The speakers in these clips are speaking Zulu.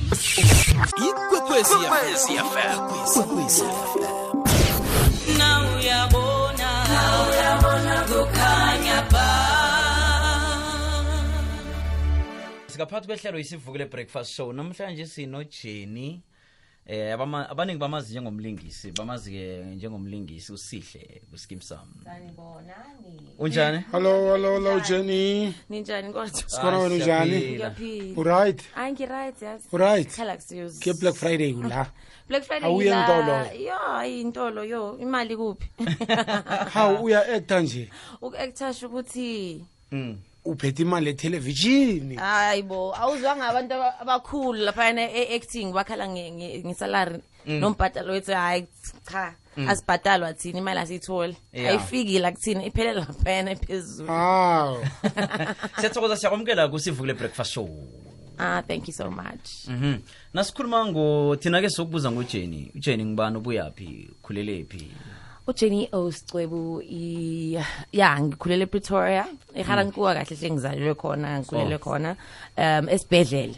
Ikwekwezi FM. Ikwekwezi FM. Na uyabona, na uyabona kukhanya ba. Sikaphathi kwehlelo isivukile breakfast show. Namhlanje sino Jenny. Abaningi bamazi njengomlingisi, bamazi ke njengomlingisi uSihle kuSkeem Saam. Sanibonani. Unjani? Hello, hello, hello Jenny. Ninjani kodwa? Sikhona wena unjani? Ngiyaphila. Uright? Hayi ngiright yazi. Uright? Khala kusiyozi. Ke Black Friday kula. Black Friday. Awuye ngila- entolo. Yo, intolo yo, imali kuphi? Hawu uya actor nje. Uku-actor sho ukuthi Uphethe imali etelevision. hayibo, awuzwanga abantu abakhulu lapha e-acting bakhala ngesalary nombhadalo wethu hayi cha, asibhadalwa thina imali asiyitholi. Ayifiki la kuthina iphelela laphayana ephezulu. Hawu. Siyathokoza siyakwamukela kusivukile breakfast show. Ah, thank you so much. Nasikhuluma ngo thina ke sokubuza ngoJenny. uJenny ngibani, ubuyaphi, ukhulelephi? uJenny Oscwebu ya ngikhulele ePretoria, eGarankuwa kahle hle ngizalelwe khona, ngikhulele khona esibhedlela.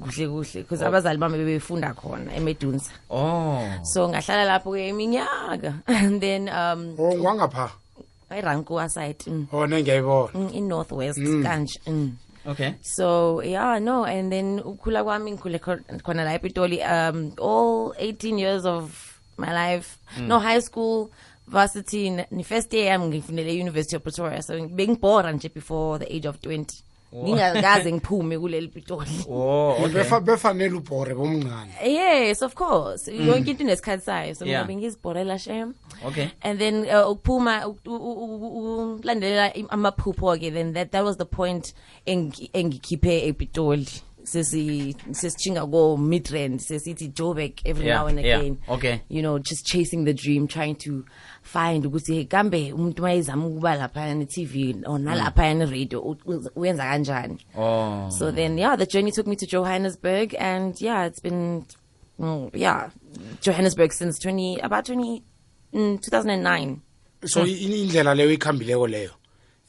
Kuhle kuhle because abazali bami bebefunda khona eMedunsa. So ngahlala lapho ke iminyaka and then Oh ngwangapha. eRankuwa side. Oh nengiyayibona. In Northwest kanje. Okay. So yeah, no, and then ukhula kwami ngikhule khona la ePitoli all 18 years of my life. No high school, varsity, ni first year yami ngifunele University of Pretoria. So bengibhora nje before the age of 20. Ngingakaze ngiphume kuleli Pitoli. Oh, okay. Befanele ubhore bomncane. Yes, of course. Yonke into inesikhathi sayo. So mina bengizibhorela shem. Okay. And then ukuphuma ukulandelela amaphupho ke, then that was the point engikhiphe ePitoli. Sesichinga go Midrand, sesithi Joburg every now and again. Okay. You know, just chasing the dream, trying to find ukuthi kambe umuntu mayezama ukuba lapha ne TV or nalapha ne radio uyenza kanjani. Oh. So then yeah, the journey took me to Johannesburg, and yeah, it's been Johannesburg since 2009. So indlela leyo ikhambileko leyo.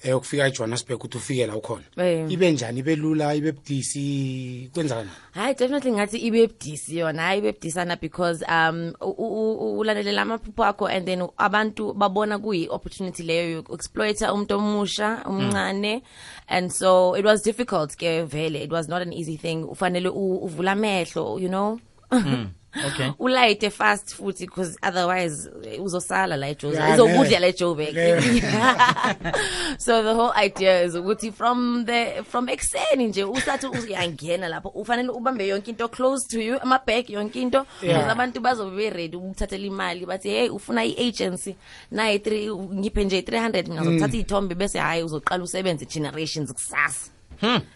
Ukufika eJohannesburg uthi ufike la ukhona. Ibe njani, ibe lula, ibe budisi, kwenzakani? Hayi definitely ngathi ibe budisi yona, hayi ibe budisana because ulandelela amaphupho akho and then abantu babona kuyi opportunity leyo yokuexploita umuntu omusha omncane, and so it was difficult ke vele, it was not an easy thing. Ufanele uvula amehlo, you know. Okay. Ulayite fast futhi because otherwise uzosala la eJoburg. Uzokudla la eJoburg. So the whole idea is ukuthi from ekseni nje usathi uyangena lapho ufanele ubambe yonke into close to you, ama bag yonke into, because abantu bazobe be ready ukuthathela imali bathi hey ufuna iagency nayi 3 ngiphe nje 300 mina ngizothatha izithombe bese hayi uzoqala usebenze generations kusasa.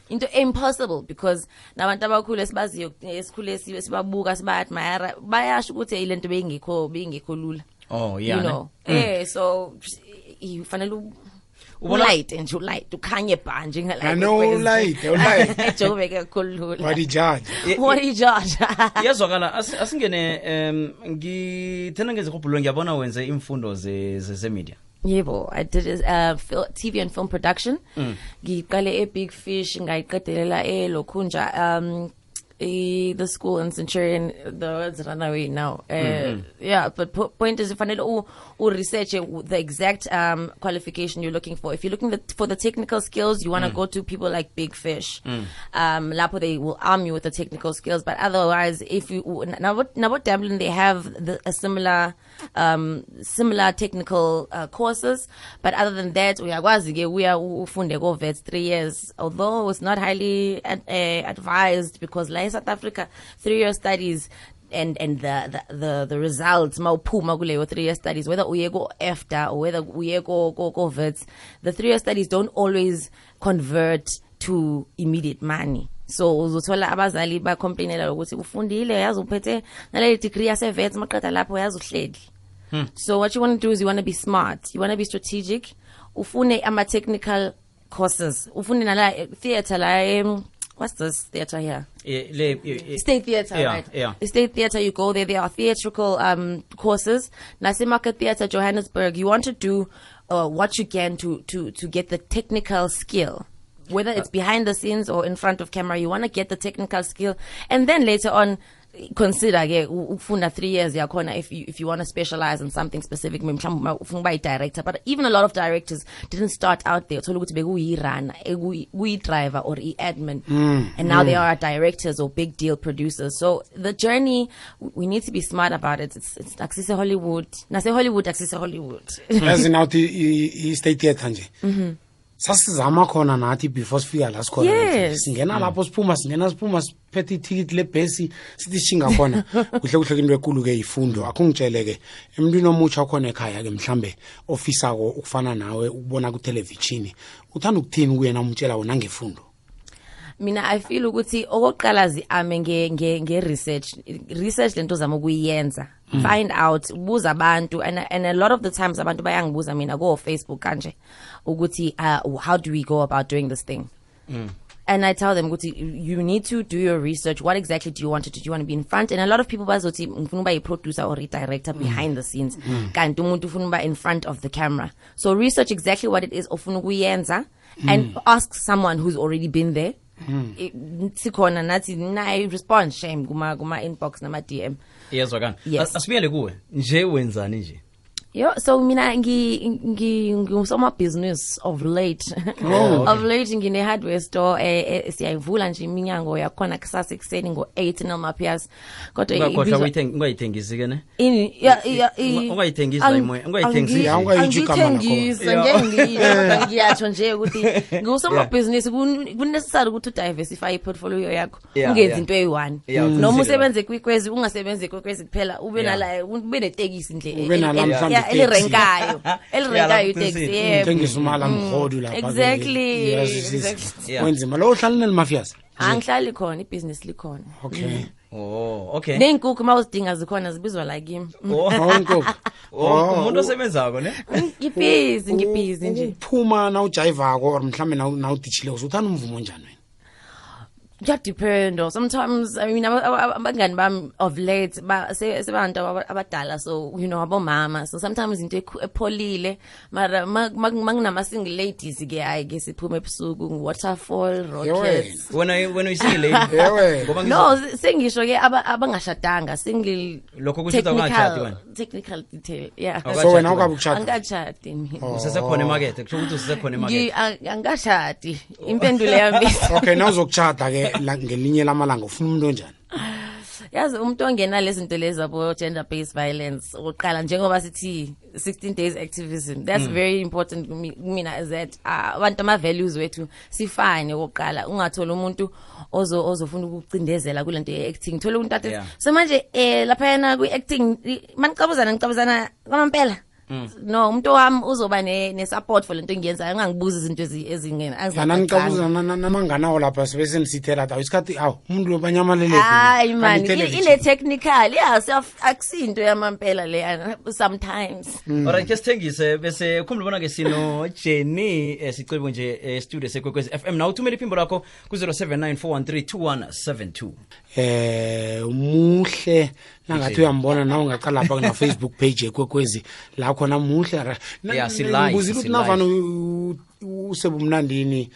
Into impossible because nabantu abakhulu esibaziyo esikhule sibabuka siba-admire bayasho ukuthi lento beyingekho lula. Oh yeah. You know. So ufanele ulight nje ulight ukhanye bha njengala. No light, ulight. Ejoburg kakhulu. What do judge? What do judge? Iyazwakala asingene ngithena ngezihobhulo ngiyabona wenze imfundo ze media. Yebo, I did TV and film production. Ngiqale e Big Fish ngayiqedelela eLokhunja the school in Centurion, the words run away now. Yeah, but point is ufanele u research the exact qualification you're looking for. If you're looking for the technical skills, you want to go to people like Big Fish. Lapho they will arm you with the technical skills, but otherwise if you now Dublin, they have a similar technical courses, but other than that uyakwazi ke uya ufunde ko VETS 3 years, although it's not highly advised because like South Africa 3-year studies and the results mawuphuma kuleyo 3-year studies, whether uye go EFTA or whether uye go VETS, the 3-year studies don't always convert to immediate money. So uzothola abazali ba complainela ukuthi ufundile yazi uphethe nale degree yase VETS maqeda lapho yazi uhleli. So what you want to do is you want to be smart, you want to be strategic, ufune ama technical courses, ufune nala theater la what's this theater here? State Theater, right? Yeah. The State Theater, you go there, there are theatrical courses. Nasimaka Theater, Johannesburg, you want to do what you can to get the technical skill. Whether it's behind the scenes or in front of camera, you want to get the technical skill, and then later on consider ke ukufunda 3 years yakhona if you want to specialize in something specific, mhlawumbe ufuna ukuba i-director. But even a lot of directors didn't start out there. Uthola ukuthi bekuyi-runner, kuyi-driver or i-admin, and now they are directors or big deal producers. So the journey, we need to be smart about it. It's akusise Hollywood, nase Hollywood, akusise Hollywood. Yazi, nawuthi i-State Theatre nje, sasizama khona nathi before sifika la sikhona. Singena lapho, siphuma, singena, siphuma, siphethe ithikithi lebhesi, sithi shinga khona. Kuhle kuhle, into ekulu-ke ifundo. Akho ngitshele-ke, emntwini omutsha okhona ekhaya-ke, mhlambe ofisako ukufana nawe, ukubona kuthelevishini, uthanda ukuthini kuyena, umtshela wona ngefundo? Mina I feel ukuthi okokuqala zi-ame nge-research, research lento ozama ukuyenza, find out, buza abantu. And a lot of the times abantu bayangibuza mina ko-Facebook kanje ukuthi how do we go about doing this thing? And I tell them ukuthi you need to do your research. What exactly do you want to do? Do you want to be in front? And a lot of people bazothi ngifuna ukuba yi-producer or i-director behind the scenes, kanti umuntu ufuna ukuba in front of the camera. So research exactly what it is ofuna ukuyenza and ask someone who's already been there. Sikhona nathi, nayi respond shame kuma inbox nama DM. Iyezwakala. Yes. Asibuyele kuwe nje, wenzani nje? Yo, so mina ngi ngusomabhizinisi of late. Of late ngine hardware store, siyayivula nje iminyango yakhona kusasa ekuseni ngo-8 noma-pias. Kodwa Ungakhohlwa ungayithengisi ke, ne? Ini ya Ungayithengisi la imoya, ungayithengisi. Ya, ungayitsho igama lakhona. Angiyithengisi, ngeke ngiyisho, kodwa ngiyasho nje ukuthi ngusomabhizinisi. Ku-necessary ukuthi udiversify i-portfolio yakho. Ungenzi into eyi-one. Uqinisile Noma lapho. usebenze kwiKwezi, ungasebenzi kwiKwezi kuphela, ube nala, ube netekisi nje Ube nala mhlawumbe iteksi. elirenkayo, elirenkayo lapho iteksi, uqinisile. yebo. Thengisa umala mhodu lapha. Exactly. Wenzima lo, uhlala nelimafias? Angihlali khona, ibhizinisi likhona. Okay. Oh, okay. Ney'nkukhu uma uzidinga zikhona, zibizwa la kimi. Oh, Oh, inkukhu. oh, umuntu osebenzako, ne? Ngibhizi, ngibhizi nje. Ukuphuma nawujayivako or mhlawumbe nawuditshileko, uthanda umvumo njani wena? Kuyadependa. Sometimes, I mean, abangani bami of late sebantu abadala, so abomama, so sometimes into epholile. Mara makunama-single ladies ke, hayi ke, siphume ebusuku, Waterfall, Rockets. Wena uyisingle lady? Yewe. Ngoba No, sengisho ke abangashadanga, single. Lokho kusho ukuthi awukashadi wena? Technical detail, yeah. Awukashadi So wena wena. awukabe ukushada? Angikashadi mina. Usesekhona emakethe, kusho ukuthi usesekhona emakethe. Angikashadi, impendulo yami. Okay, nawuzokushada ke ngelinye lamalanga, ufuna umuntu onjani? Yazi, umuntu ongena lezi zinto lezi abo gender based violence okokuqala, njengoba sithi 16 days activism, that's very important kumina, is that abantu ama values wethu sifane okokuqala. Ungathola umuntu ozofuna ukucindezela kulento ye acting, thola umuntu athi so manje lapha yana kwi acting manicabuzana, nicabuzana kwamampela. No, umuntu wami uzoba ne support for lento engiyenzayo, ungangibuza izinto ezingena. Yana, nicabuza namanganawo lapha, sibe senisithela awu isikhathi, awu umuntu lo banyamalele. Hayi man, ile technical, yeah, self akusinto yamampela leyana sometimes. Alright, ke sithengise bese khumbula bona ke sino Jenny Sicebo nje e-studio seKwekwezi FM. Na uthumela iphimbo lakho ku 0794132172. Muhle nangathi uyambona nawe, ungaqala lapha kuna Facebook page eKwekwezi la khona, muhle. Yeah, si-live, Ngibuzile ukuthi si-live. navane usebumnandini,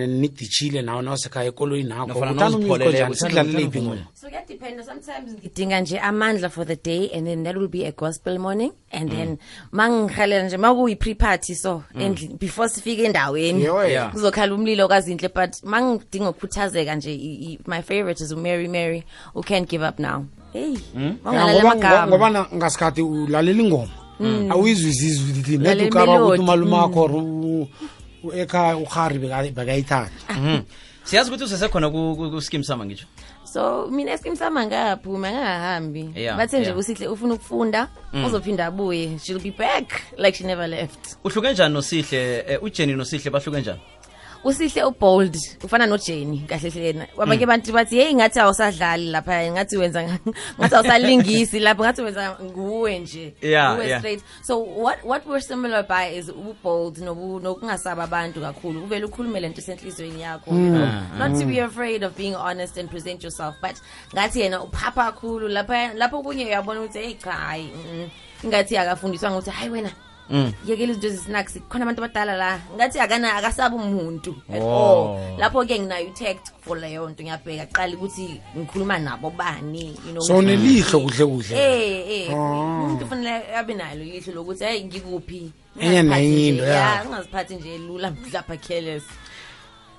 nidishile nawe, nawusekhaya ekoloyini nakho, Nofana uthanda umusic nawuzipholeleko, onjani? Sikudlalele uthanda iphi umvumo? ingoma? So kuyadependa. Sometimes ngidinga nje amandla for the day, and then that will be a gospel morning, and then mangihalela nje makuyi pre-party, so endlini before sifike endaweni, Yewe. kuzokhala umlilo kaZinhle. But mangidinga ukukhuthazeka nje, my favorite is uMary Mary, who Can't Give Up Now. Hey, Ya, mangalalela amagama. Ngoba ngasikhathi ulalela ingoma, awuyizwisisi ukuthi Ulalela net ukaba ukuthi imelody. umalumakho or ekhaya uhari bekayithanda. Siyazi ukuthi usesekhona ku-Skeem Saam, ngisho. So mina eSkeem Saam angaphumi, angahambi. Bathe nje uSihle ufuna ukufunda, uzophinda abuye, she'll be back like she never left. Uhluke njani noSihle, uJenny noSihle bahluke njani? USihle ubold, ufana noJenny kahle hle yena. Abanye abantu bathi, hey, ngathi awusadlali lapha, ngathi wenza ngathi awusalingisi lapha, ngathi wenza nguwe nje, nguwe straight. So what we're similar by is ubold nokungasaba abantu kakhulu, uvele ukhulume lento esenhlizweni yakho, not to be afraid of being honest and present yourself. But ngathi yena uphapha kakhulu lapha, lapho kunye uyabona ukuthi hey, cha, hayi, ngathi akafundiswa ukuthi hayi wena. Yekela izinto ezi-snacks, khona abantu abadala la ngathi akana akasabi umuntu at all. Lapho ke nginayo i-tact for leyo nto, ngiyabheka qala ukuthi ngikhuluma nabo bani. So unelihlo kuhle kuhle. Eh, umuntu kufanele abe nalo ilihlo lokuthi hey, ngikuphi. Enye nenye into, ya. Ungaziphathi nje lula mhlapha, careless.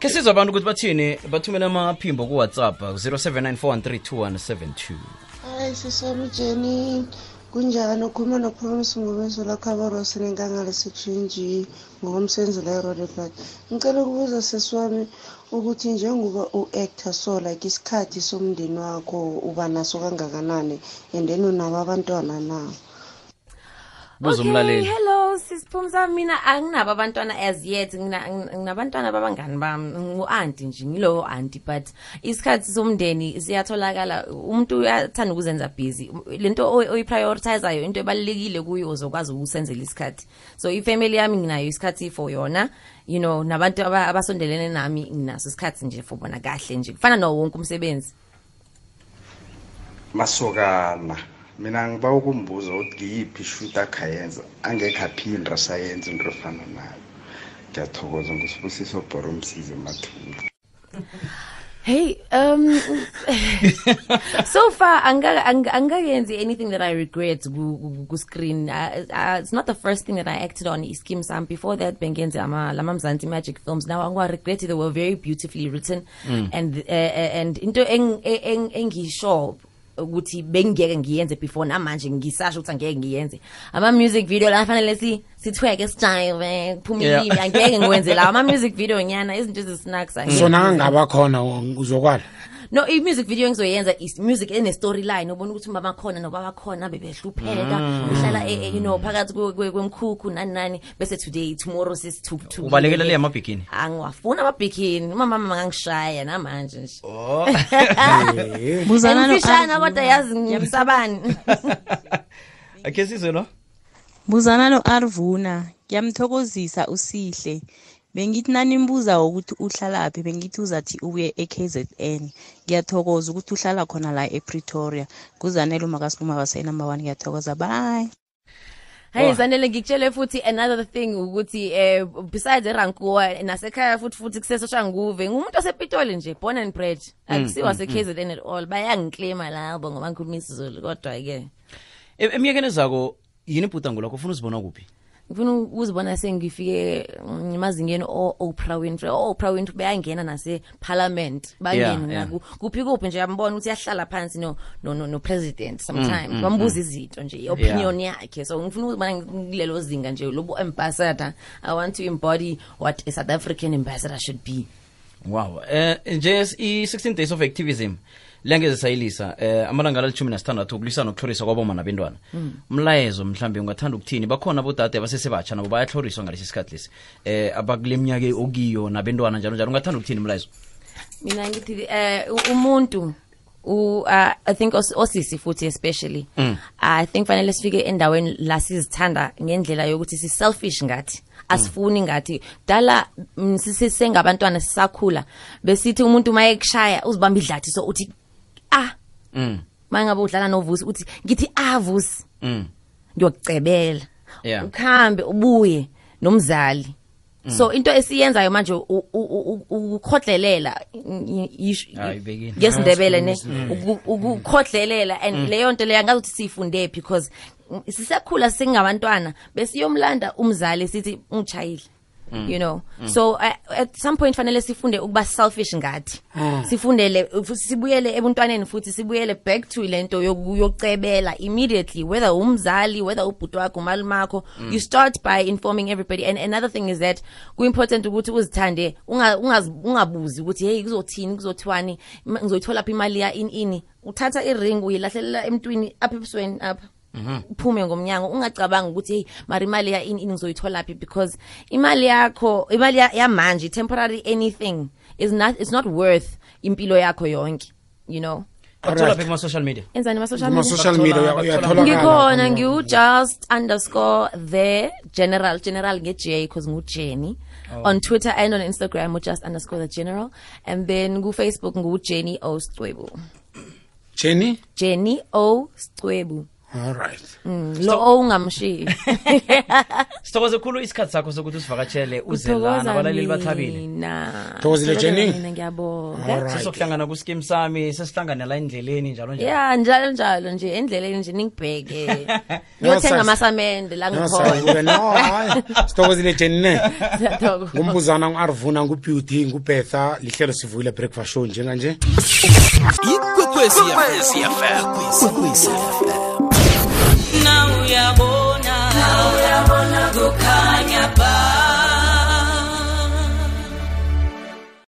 Ke sizwe abantu ukuthi bathini, bathumele amaphimbo ku-WhatsApp 0794132172. Hayi, sisami Jenny, kunjani? Ukhuluma noPromise Ngomeso lakhabarosi nenkangala section G ngokomsebenzi la eRoodepoort. Ngicela ukubuza sesi wami ukuthi njengoba u-actor, so like isikhathi somndeni wakho uba naso kangakanani, and then unabo abantwana na? Buza umlaleli. Hello sisiphumza, mina anginabo abantwana as yet. Nginabantwana babangani bami, ngu-aunty nje, ngilowo aunty, but isikhathi somndeni siyatholakala. Umuntu uyathanda ukuzenza busy. Lento oyiprioritizayo, into ebalulekile kuyo, uzokwazi ukusenzela isikhathi. So ifamily yami nginayo isikhathi for yona, nabantu abasondelene nami nginaso isikhathi nje for bona, kahle nje, kufana nawo wonke umsebenzi. Masokana, mina ngiba ukumbuza ukuthi ngiyiphi ishoot akhayenza angekho aphinda sayenza into efana nayo. Ngiyathokoza, nguSibusiso Bhoro Msize Mathula. Hey, so far angikayenzi anything that I regret ku screen. It's not the first thing that I acted on, Iskeem Sam. Before that bengenze ama lama Mzansi Magic films. Now angiwa regret, they were very beautifully written and into engisho ukuthi bengeke ngiyenze before, namanje ngisasho ukuthi angeke ngiyenze ama music video la fanele si sithweke, sijive, kuphume ilimi, angeke ngiwenze la ama music video nyana, izinto ezisnacks. So nangaba khona uzokwala? No, i-music video engizoyenza is music ene storyline, ubona ukuthi umama khona nobaba khona bebehlupheka, uhlala phakathi kwemkhukhu nani nani, bese today, tomorrow sesithukuthukile. Ubalekela le amabhikini? Angiwafuna amabhikini, umama mangangishaya namanje nje. Oh. Buzana no Ngifishana kodwa yazi ngiyamsabani. Ake sizwe lo. Buzana no Arvuna, ngiyamthokozisa uSihle. Bengithi nanimbuza ukuthi uhlalaphi, bengithi uzathi ubuye eKZN. Ngiyathokoza ukuthi uhlala khona la ePretoria. Kuzanele umakasipuma base number 1, ngiyathokoza, bye. Hey Zanele, ngikutshele futhi another thing ukuthi besides eRankuwa nasekhaya futhi kuseSoshanguve, ngumuntu osePitoli nje, born and bred, akusiwa se-KZN at all. Bayangiclaima labo ngoba ngikhuluma isiZulu, kodwa ke Eminyakeni ezako yini ibhudango lakho? Ufuna uzibona kuphi? Ngifuna ukuzibona sengifike emazingeni o-Oprah Winfrey. O-Oprah Winfrey bayangena nase-parliament, bangene naku kuphi kuphi nje, yambona ukuthi uyahlala phansi no president sometimes, bambuza izinto nje, i-opinion yakhe. So ngifuna ukuzibona kulelo zinga nje lobo ambassador. I want to embody what a South African ambassador should be. Wow. Nje i-16 days of activism lengeze sayilisa, amalanga ali-16 ukulwisana nokutlhoriswa kwaboma nabentwana. Umlayezo mhlambe ungathanda ukuthini? Bakhona abodade abasesebatsha nabo bayatlhoriswa ngalesi sikhathi lesi, abakule minyaka okiyo nabentwana njalo njalo. Ungathanda ukuthini umlayezo? Mina ngithi umuntu I think osisi futhi especially, I think fanele sifike endaweni la sizithanda ngendlela yokuthi si selfish ngathi, asifuni ngathi dala sisengabantwana sisakhula besithi umuntu maye kushaya uzibamba idlathi, so uthi ah, mangabe udlala noVusi uthi ngithi ah Vusi, ngiyokucebela, ukhambe ubuye nomzali. So into esiyenzayo manje ukukhodlelela Hayi, ngesiNdebele ne, ukukhodlelela, and leyo nto leyo angazi ukuthi siyifunde, because sisakhula singabantwana besiyomlanda umzali sithi ungishayile. So at some point fanele sifunde ukuba selfish ngathi, sifundele sibuyele ebuntwaneni futhi sibuyele back to lento yokucebela immediately, whether umzali, whether ubhuti wakho, umalume wakho. You start by informing everybody. And another thing is that ku-important ukuthi uzithande, ungabuzi ukuthi hey, kuzothini, kuzothiwani, ngizoyithola phi imali ya ini ini. Uthatha iring uyilahlelela emntwini apha ebusweni apha, uphume ngomnyango, ungacabanga ukuthi hey, mara imali ya ini ini ngizoyithola phi, because imali yakho, imali yamanje, temporary anything is not, it's not worth impilo yakho yonke. Bathola phi kuma-social media? Enzani ma-social media? Kuma-social media uyatholakala. Ngikhona ngiu-just_thegeneral, general nge-J because ngu-Jenny, on Twitter and on Instagram u-just_thegeneral, and then ku-Facebook ngu-Jenny O Scwebu. Jenny. Jenny O Scwebu. All right. Lo owungamshiyi. Sithokoze khulu isikhathi sakho sokuthi usivakatshele uze lana, abalaleli bathabile. Mina. Thokozile, Jenny. Mina ngiyabonga. All right. Sizokuhlangana kuskim sami, sesihlangane la endleleni njalo njalo. Ya, njalo njalo nje endleleni nje ningibheke. Ngiyothenga No, amasamende la No, ngikhona. sayibuke. No, hayi. Sithokozile Jenny ne. Siyathokoza. Ngumbuzana ngu-Arvuna, nguBeauty, nguBetha, lihlelo Sivuyile Breakfast Show njenganje. Ikwekwezi FM. Ikwekwezi FM. Now uyabona.